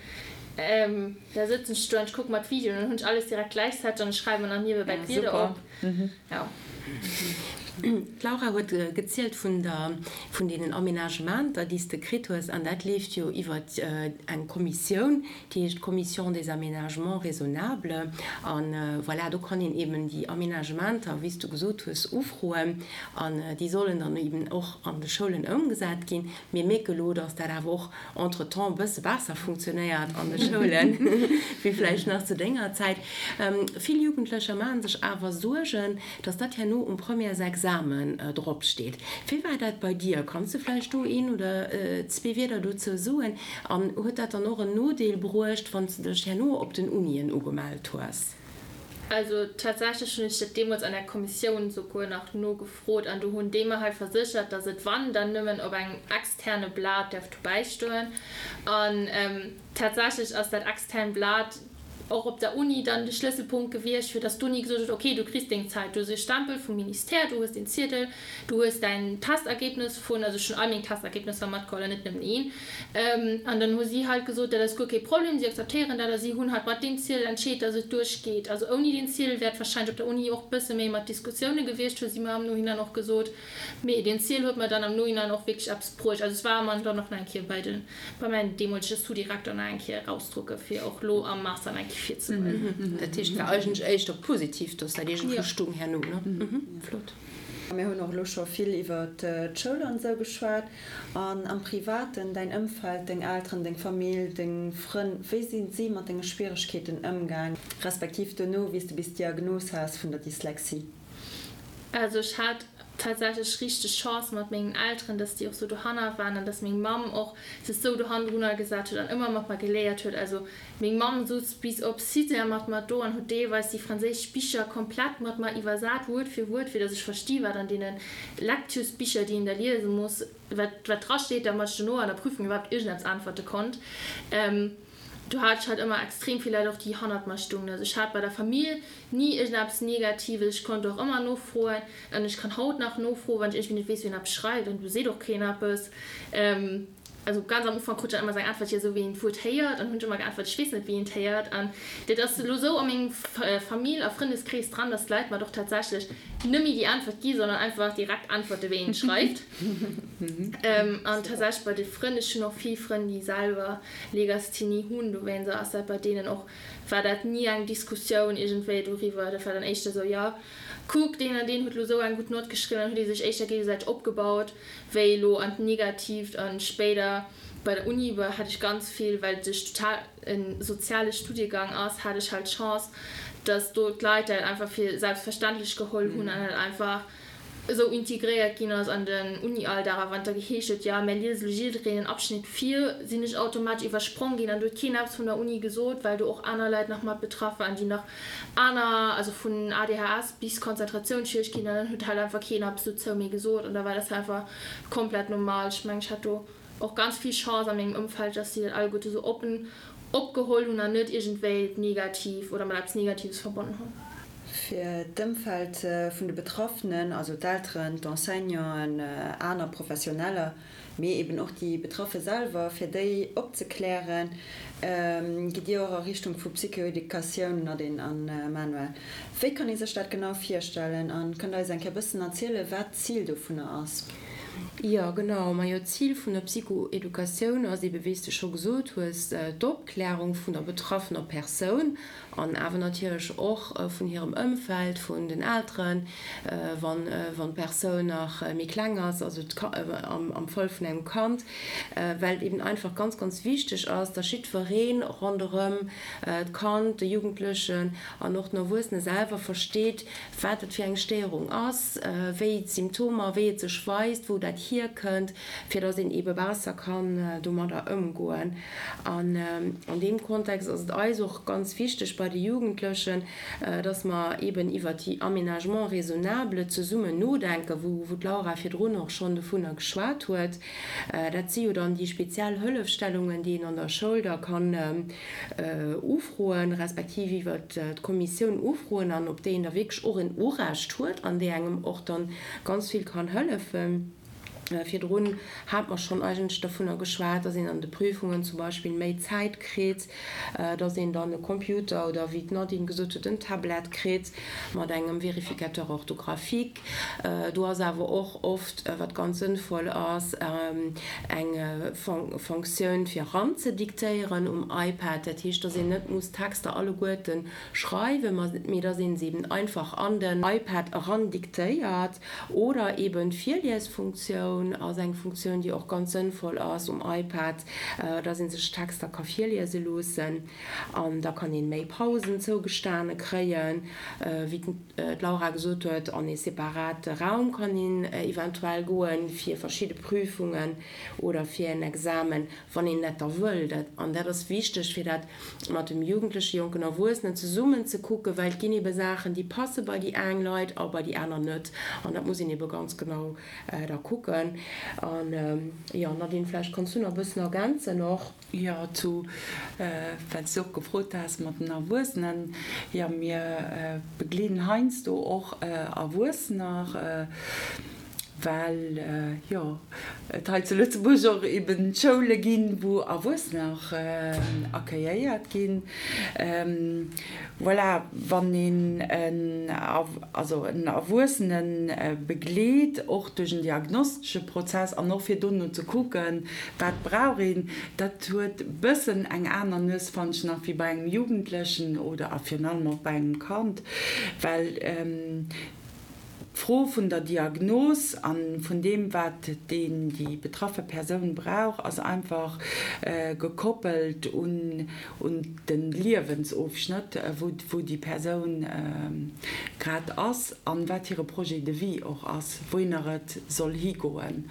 Da sëtzen ech do an ech kucke mer d'Videoen an dann hunn ech alles direkt gläichzäiteg an ech schreiwe mer nach niewebäi d'Wierder op. Jo. D'Laura huet gezielt vun der, vun deenen Aménagementer, déi s de kritt hues, an dat leeft jo iwwer eng Kommissioun, déi heescht Commission des aménagements raisonnables. A voilà, do kann een eben déi Aménagementer, wéi s du gesot hues, ufroen an déi sollen dann eben och an de Schoulen ëmgesat ginn. Mir mierke lo, dass dat awer och entretemps e bësse besser funktionéiert an de Schoulen, wéi vläicht nach zu denger Zäit. Vill Jugendlecher maache sech awer Suergen, dass dat herno um Premièresexamen dropsteet. Wéi war dat bei dir? Kanns de vläicht do een oder zwee Wierder dozou soen? An huet dat dann och en Nodeel bruecht, wann s de dech herno op den Unien ugemellt hues? Also tatsächlech hunn ech dat deemools an der Kommissioun souguer nach nogefrot an do hunn déi mer hei verséchert, dass et wann, dann nëmmen op engem externe Blat däerf dobäi stoen. An tatsächlech ass dat extern Blat och op der Uni dann de Schlësselpunkt gewiescht, fir dass d'Uni gesot huet, okay, du kriss deng Zäit, du hues e Stempel vum Ministère, du hues den Ziedel, Du hues däin Testergebnis vun, also ech hunn all meng Testergebnisser matgeholl an net nëmmen een. An dann hu si halt gesot, dat ass guer kee Problem, si akzeptéieren dat a si hunn halt mat deem Ziel entscheet, dass et duerchgeet. Also ouni deen Ziel wär et warscheinlech op der Uni och bësse méi mat Diskussioune gewiescht, hu si mer am Nohinein och gesot. Mee deen Ziel huet mer dann am Nohinein och wierklech eppes bruecht. Also es war mer dann och nach eng Kéier bei den bei mäin deemolege Sous-Direkter nach eng Kéier erausdrucke fir och lo am Master nach eng Kéier virzeweisen. Dat heescht, et war eigentlech éischter positiv, dass dat iergendwou stung herno, ne? Flott. Mir hunn och elo scho vill iwwer d'Schoul an esou geschwat. An am Privaten, däin Ëmfeld, deng Elteren, deng Famill, deng Frënn, wéi sinn si mat denge Schwieregkeeten ëmgaang, respektiv dono, wéi s de bis d'Diagnos has vun der Dyslexie? Also ech hat tatsächlech richteg Chance mat mengen Elteren, dass déi och sou dohanner waren an dass meng Mamm och sech sou dohannendrunner gesat huet an ëmmer mat mer geléiert huet. Also Meng Mamm souz bis op Sixième mat mer do an huet deelweis déi franséisch Bicher komplett mat mer iwwersat, Wuert fir Wuert, fir datt ech versti wat an deene Lecturesbicher, déi een da liese muss, wat wat dra steet, damat ech dono an der Prüfung iwwerhaapt iergendeppes äntwerte konnt. Do hat ech halt ëmmer extrem vill Leit och, déi hannert mer stungen. Also ech hat bei der Famill ni iergendeppes Negatives, ech konnt och ëmmer nofroen an ech kann haut nach nofroen, wann ech iergendwéi net weess, wéi een eppes schreift an do seet och keen eppes. Also ganz am Ufank krut ech dann ëmmer sou eng Äntwert, jo esou wéi een d'Wuert héiert. An hunn ech ëmmer geäntwert, ech weess net wéi een d'héiert. An dat ass elo esou a mengem Famill a Frëndeskrees dran, datt d'Leit mer och tatsächlech net méi déi Äntwert gi, sondern einfach direkt äntwerte wéi een et schreift. An tatsächlech bei de Frënn, ech hunn och vill Frënn déi selwer Legasthenie hunn, dowéinst ass dat bei deenen och, war dat ni eng Diskussioun iergendwéi doriwwer. Dat war dann éischter esou, jo kuck deen an deen huet elo esou eng gutt Nott geschriwwen, dann huet ee sech éischter géigesäiteg opgebaut. wéi elo an d'Negatiivt an spéider bei der Uni war hat ech ganz vill, well et total en soziale Studiegang ass, hat ech halt d'Chance, dass do d'Leit dat einfach fir selbstverständlech geholl hunn an dat einfach esou integréiert ginn ass an den Uni-Alldag. A wann et da geheescht huet, jo mär liese lo jiddereen en Abschnitt vir, sinn ech automatesch iwwersprong ginn an do huet keen eppes vun der Uni gesot, well do och aner Leit nach mat betraff waren, déi nach aner, also vun ADHS bis Konzentratiounsschwierigkeeten, an dann huet halt einfach keen eppes dozou méi gesot an da war dat einfach komplett normal. Ech mengen, ech hat do och ganz vill Chance a mengem Ëmfeld, dass si dat alleguerte sou oppen opgeholl hunn an net iergendwéi negativ oder mat eppes Negatives verbonnen hunn. Fir d'Ëmfeld vun de Betraffenen, also d'Elteren, d'Enseignanten, aner Professioneller, mee eben och déi Betraffe selwer, fir déi opzeklären, gitt Dir och a Richtung vu Psychoeducatioun, Nadine a Manuel. Wéi kann ee sech dat genau virstellen a kënnt Der eis eng Kéier e bëssen erzielen, wat d'Zil dovunner ass? Jo, genau. Majo, d'Zil vun der Psychoeducatioun ass ebe, wéi s de scho gesot hues, d'Opklärung vun der betraffener Persoun An awer natierlech och vun hirem Ëmfeld, vun den Elteren, wann d'Persoun nach méi kleng ass, also am Fall vun engem Kand, well et eben einfach ganz, ganz wichteg ass, dass jiddweree ronderëm d'Kand, de Jugendlechen an och den Erwuessene selwer versteet, wat et fir eng Stéierung ass, wéi d'Symptomer, wéi et sech weist, wou dat. dat hierkënnt, fir dass een eebe besser kann domadder ëmgoen. An an deem Kontext ass et eis och ganz wichteg bei de Jugendlechen, dass mer eeben iwwert déi Aménagements raisonnables zesummen nodenken, wou d'Laura virdrun och schonn dovunner geschwat huet. Dat si jo dann déi speziell Hëllefstellungen, déi een an der Schoul da kann ufroen, respektiv iwwert d'Kommissioun ufroen an op déi een da wierklech och en Urecht huet an déi engem och dann ganz vill kann hëllefen. Virdrun hat mer schonn eigentlech dovunner geschwat, dass een an de Prüfungen zum Beispill méi Zäit kritt, dass een dann e Computer oder, wéi d'Nadine gesot huet, en Tablet kritt mat engem Vérificateur orthographique. Do ass awer och oft, wat ganz sënnvoll ass, eng Fonctioun fir eranzediktéieren um iPad. Dat heescht, dass een net muss d'Texter alleguerten schreiwen, mee dass een se eben einfach an den iPad erandiktéiert. Oder eben d'Virliesfunktioun ass eng Funktioun, déi och ganz sënnvoll ass um iPad, dass ee sech Texter ka virliese loossen an da kann een méi Pausen zougestane kréien. Wéi d'Laura gesot huet, an ee separate Raum kann een eventuell goen fir verschidde Prüfungen oder fir en Examen, wann een dat da wëll. An dat ass wichteg, fir dat mat dem Jugendlechen, jonken Erwuessenen zesummen ze kucken, well et ginn ebe Saachen, déi passe bei déi eng Leit a bei déi aner net. An dat muss een ebe ganz genau da kucken. An, jo, Nadine, vläicht kanns du nach e bëssen ergänzen och. Jo, zu, well s du och gefrot has mat den Erwuessenen, jo, mir begleeden heiansdo och Erwuessener, well jo et hei zu Lëtzebuerg och eben Schoule ginn, wou Erwuessener accueilléiert ginn. Voilà, wann een en, also en Erwuessene begleet, och duerch en diagnostesche Prozess an och fir dono ze kucken, wat brauch een, dat huet e bëssen eng aner Nues, fannen ech nach, wéi bei engem Jugendlechen oder a virun allem och bei engem Kand, well D'Fro vun der Diagnos a vun deem, wat deen, déi betraffe Persoun brauch, ass einfach gekoppelt un de Liewensofschnëtt, wou déi Persoun grad ass a wat hire Projet de vie och ass, wouhinner et soll higoen.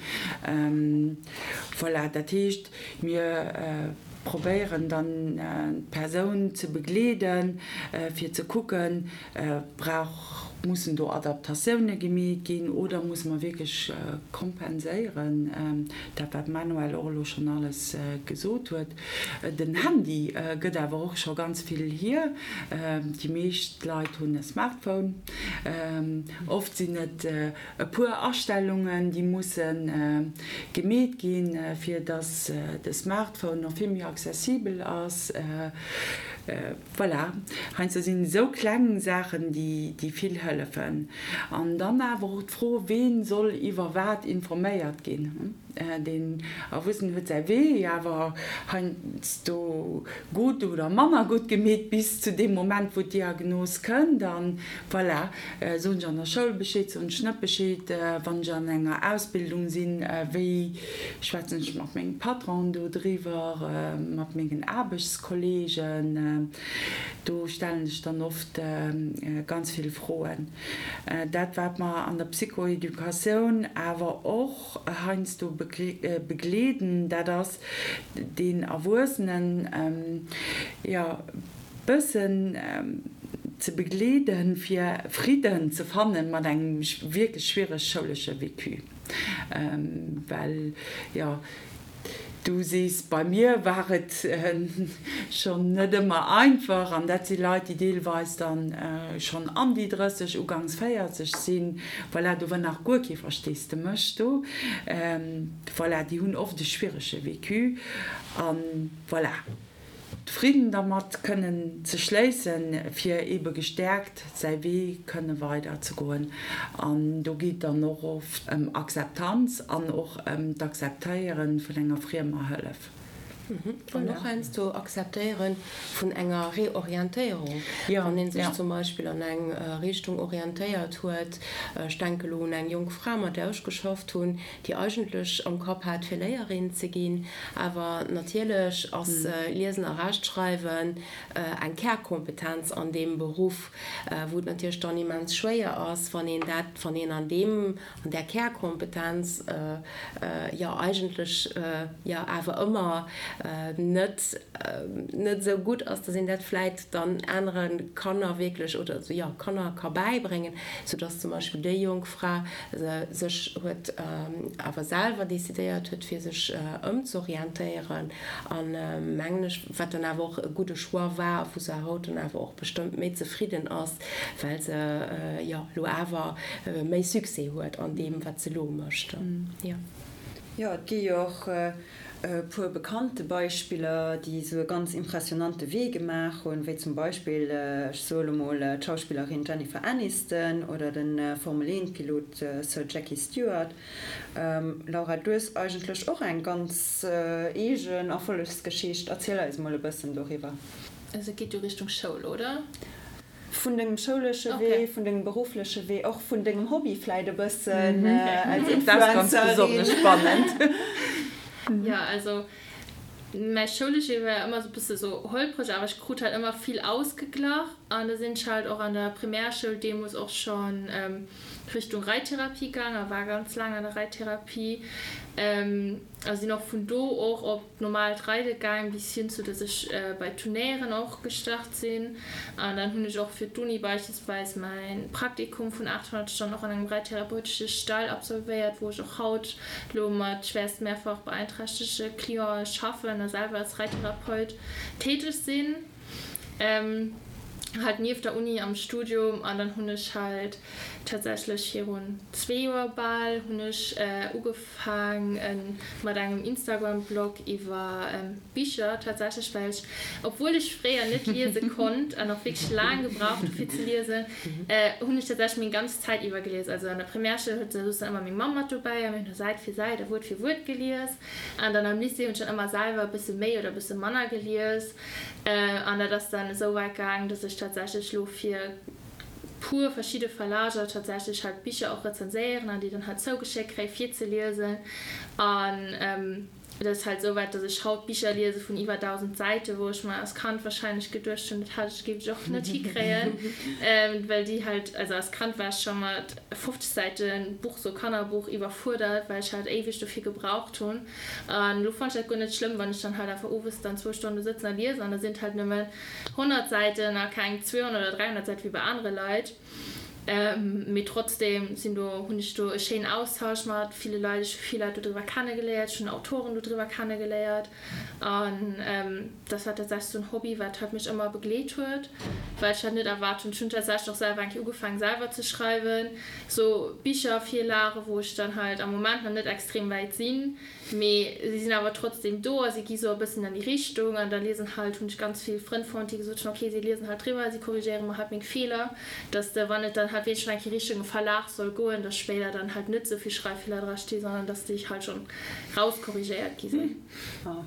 Voilà, dat heescht, mir probéieren dann d'Persoun ze begleeden, fir ze kucken, Brauch, mussen do Adaptatioune gemeet ginn oder musse mer wierklech kompenséieren, dat wat d'Manuelle och elo schonn alles gesot huet. Den Handy gëtt awer och scho ganz vill hier. Déi meescht Leit hunn e Smartphone. Oft sinn et e puer Astellungen, déi musse gemeet ginn, fir datt de Smartphone och vill méi accessibel ass. Voilà, heiansdo sinn et esou kleng Saachen, déi vill hëllefen. An dann awer och d'Fro, Ween soll iwwer wat informéiert ginn? Deen Erwuessenen huet säi Wee awer heiansdo gutt oder manner gutt gemeet bis zu deem Moment, wou d'Diagnos kënnt. An voilà, soen ech an der Schoul Bescheed, soen ech net Bescheed? Wann ech an enger Ausbildung sinn, wéi schwätzen ech mat mengem Patron do driwwer, mat mengen Aarbechtskollegen? Do stellen sech dann oft ganz vill Froen. Dat wat mer an der Psychoeducatioun awer och heiansdo begleeden, dat ass deen Erwuessenen, jo, bëssen ze begleeden, fir Fridden ze fannen mat engem wierklech schwiereg schoulesche Vécu. Well, jo, du sees, bei mir war et schonn net ëmmer einfach, an dat si Leit, déi deelweis dann schonn an déi 30, ugangs 40 sinn, voilà, do war nach guer kee Versteesdemech do, voilà, déi hunn oft e schwierege Vécu, a voilà. Fridden dermat kënnen ze schléissen, fir eebe gestäerkt säi Wee kënne weider ze goen. An do geet dann och oft ëm Akzeptanz an och ëm d'Akzeptéiere vun enger friemer Hëllef. An och heiansdo Akzeptéiere vun enger Reorientéierung, wann ee sech zum Beispill an eng Richtung orientéiert huet. Ech denke lo un eng jonk Fra, mat där ech geschafft hunn, déi eigentlech am Kapp hat, fir Léierin ze ginn. Awer natierlech ass Liesen a Rechtschreiwen eng Kärkompetenz an deem Beruff, wou et natierlech dann immens schwéier ass, wann een dat, wann een an deem, an där Kärkompetenz jo eigentlech jo awer ëmmer net, net esou gutt ass, dass een dat vläit dann anere Kanner wierklech oder jo Kanner ka bäibréngen, soudass zum Beispill déi jonk Fra sech huet awer selwer decidéiert huet, fir sech ëmzorientéieren an, mengen ech, wat dann awer och e gudde Choix war a wou se haut dann awer och bestëmmt méi zefridden ass, well se jo elo awer méi Succès huet an deem, wat se elo mécht. Jo. Jo, et gi jo och e puer bekannte Beispiller, déi esou e ganz impressionante Wee gemaach hunn, wéi zum Beispill, ech soe lo mol, d'Schauspillerin Jennifer Aniston oder de Formel-Eent-Pilot Sir Jackie Stewart. Laura, du hues eigentlech och eng ganz eegen Erfollegsgeschicht. Erziel eis mol e bëssen doriwwer. Also et geet jo Richtung Schoul, oder? Vun dengem schoulesche Wee, vun dengem beruffleche Wee, och vun dengem Hobby vläit e bëssen als Dat ass ganz besonnesch spannend. Jo, also mäi schoulesche Wee war ëmmer sou e bësse sou holpreg, awer ech krut halt ëmmer vill ausgeglach an da sinn ech halt och an der Primärschoul deemools och schonn Richtung Reittherapie gaang a war ganz laang an der Reittherapie a sinn och vun do och op D'normaalt Reide gaang bis hin zu dass ech bei Turnéieren och gestart sinn. An dann hunn ech och fir d'Uni beispillsweis mäin Praktikum vun 800 Stonnen och an engem reittherapeutesche Stall absolvéiert, wou ech och haut lo mat schwäerst mehrfach beeinträchtege Clienten schaffen a selwer als Reittherapeut täteg sinn. Halt nieft der Uni am Studium. An dann hunn ech halt tatsächlech virun zwee Joer bal hunn ech ugefaang mat engem Instagram Blog iwwer Bicher tatsächlech, well ech, obwuel ech fréier net liese konnt an och wierklech laang gebraucht hu fir ze liesen, hunn ech tatsächlech meng ganz Zäit iwwer gelies. Also an der Primärschoul huet soss dann ëmmer meng Mamm mat dobäi a mir hunn da Säit fir Säit a Wuert fir Wuert gelies. An dann am Lycée hunn ech dann ëmmer selwer e bësse méi oder e bësse manner gelies. An dat ass dann esou wäit gaang, dass ech tatsächlech elo fir puer verschidde Verlager tatsächlech halt Bicher och rezenséieren an déi dann halt zougeschéckt kréie fir ze liesen. An et ass halt esou wäit, dass ech haut Bicher liese vun iwwer 1.000 Säiten, wou ech mer als Kand wahrscheinlech geduecht hunn, dat hat ech, géif ech och net hikréien, well déi halt, also als Kand war ech scho mat 50 Säiten Buch, sou Kannerbuch, iwwerfuerdert, well ech halt éiweg dofir gebraucht hunn. An elo fannen ech dat guer net schlëmm, wann ech dann halt einfach owes dann zwou Stonne sëtzen a liesen an da sinn et halt nëmmen 100 Säiten a keng 200 oder 300 Säite wéi bei anere Leit. Mee trotzdem sinn do, hunn ech do e schéinen Austausch mat ville Leit. Ech hu vill Leit dodriwwer kennegeléiert, ech hunn Autoren dodriwwer kennegeléiert an dat war tatsächlech sou en Hobby, wat halt mech ëmmer begleet huet, well ech halt net erwaart hunn. Ech hunn tatsächlech och selwer eng Kéier ugefaangen selwer ze schreiwen, sou Bichervirlagen, wou ech dann halt am Moment nach net extrem wäit sinn. Mee si sinn awer trotzdem do a si gi sou e bëssen an déi Richtung. An da liesen halt, hunn ech ganz vill Frënn fonnt, déi gesot hunn, ok, si liesen halt driwwer, si korrigéiere mer halt meng Feeler, dass de, wann et dann halt wierklech eng Kéier Richtung e Verlag soll goen, dass spéider dann halt net sou vill Schreiffeeler dra sti, sondern dass déi halt schonn rauskorrigéiert gi sinn. Oh,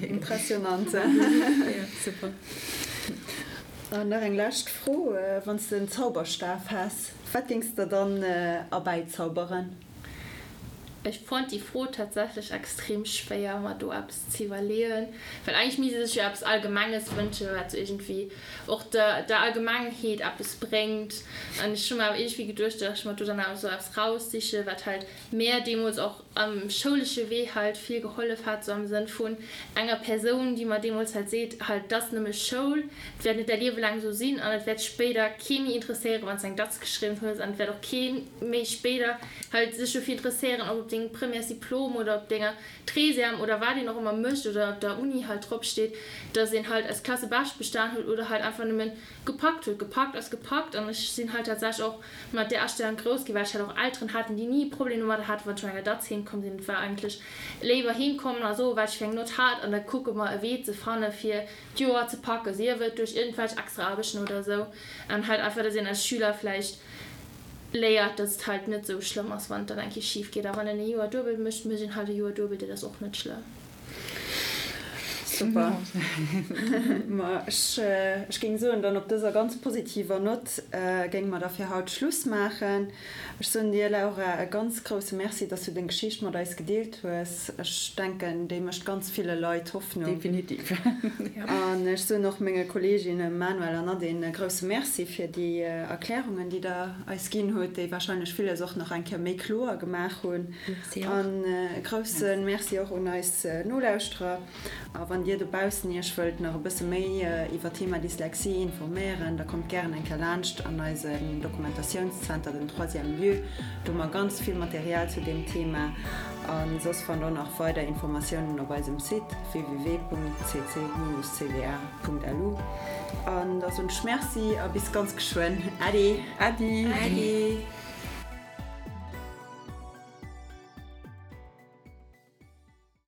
impressionant. Super. An nach eng lescht Fro, Wann s de en Zauberstaf häss, wat géings de dann erbäizauberen? Ech fonnt déi Fro tatsächlech extrem schwéier mer do eppes ze iwwerleeën, well eigentlech misst ee sech jo eppes Allgemenges wënschen, wat sou iergendwéi och der der Allgemengheet eppes bréngt. An ech hu mer awer iergendwéi geduecht, datt ech mer do dann awer sou eppes raussiche wat halt mär deemools och am schoulesche Wee halt vill gehollef hat, sou am Sënn vun enger Persoun, déi mer deemools halt seet, halt, 't ass nëmme Schoul, 't wäert net däi Liewe laang esou sinn an et wäert spéider kee méi interesséieren, wann s de eng Datz geschriwwen hues an et wäert och kee méi spéider halt sech dofir interesséieren, ob op dengem Premièresdiplom oder op denger Treizième oder wat een och ëmmer mécht oder op der Uni halt drop steet, dass een halt als Klasse bescht bestan huet oder halt einfach nëmmen gepackt huet. Gepackt ass gepackt an ech sinn halt tatsächlech och mat där Astellung grouss ginn, well ech halt och Elteren haten, déi ni e Problem domadder haten, wann ech mat enger Datz heem komm sinn. Et war eigentlech léiwer heem kommen a soen, wat ech fir eng Nott hat an da kucke mer e Wee ze fanne fir d'Joer ze packen, sief et duerch iergendwelch extra Aarbechten oder esou an halt einfach, dass een als Schüler vläicht léiert, dass et halt net esou schlëmm ass, wann et dann eng Kéier schif geet. A wann een e Joer duebel mécht, mécht een halt e Joer duebel, dat ass och net schlëmm. Super. Ma ech, ech géing soen, dann op dëser ganz positiver Nott géinge mer da fir haut Schluss maachen. Ech soen dir, Laura, e ganz grousse Merci, dass du deng Geschicht mat eis gedeelt hues. Ech denken, déi mécht ganz ville Leit Hoffnung. Definitiv. An ech soen och menge Kolleeginne Manuel an Nadine e grousse Merci fir déi Erklärungen, déi der eis ginn hutt, déi warscheinlech villes och nach eng Kéier méi kloer gemaach hunn. Merci och. An e grousse Merci och un eis Nolauschterer. A wann Dir dobaussen Iech wëllt nach e bësse méi iwwer d'Thema Dyslexie informéieren, da kommt gären eng Kéier laanscht an eisen Dokumentatiounszenter, den Troisième Lieu. Do hu mer ganz vill Material zu deem Thema. A soss fannt der nach weider Informatiounen op eisem Site www.cc-cda.lu. An da soen ech Merci a bis ganz geschwënn. Äddi! Äddi! Äddi!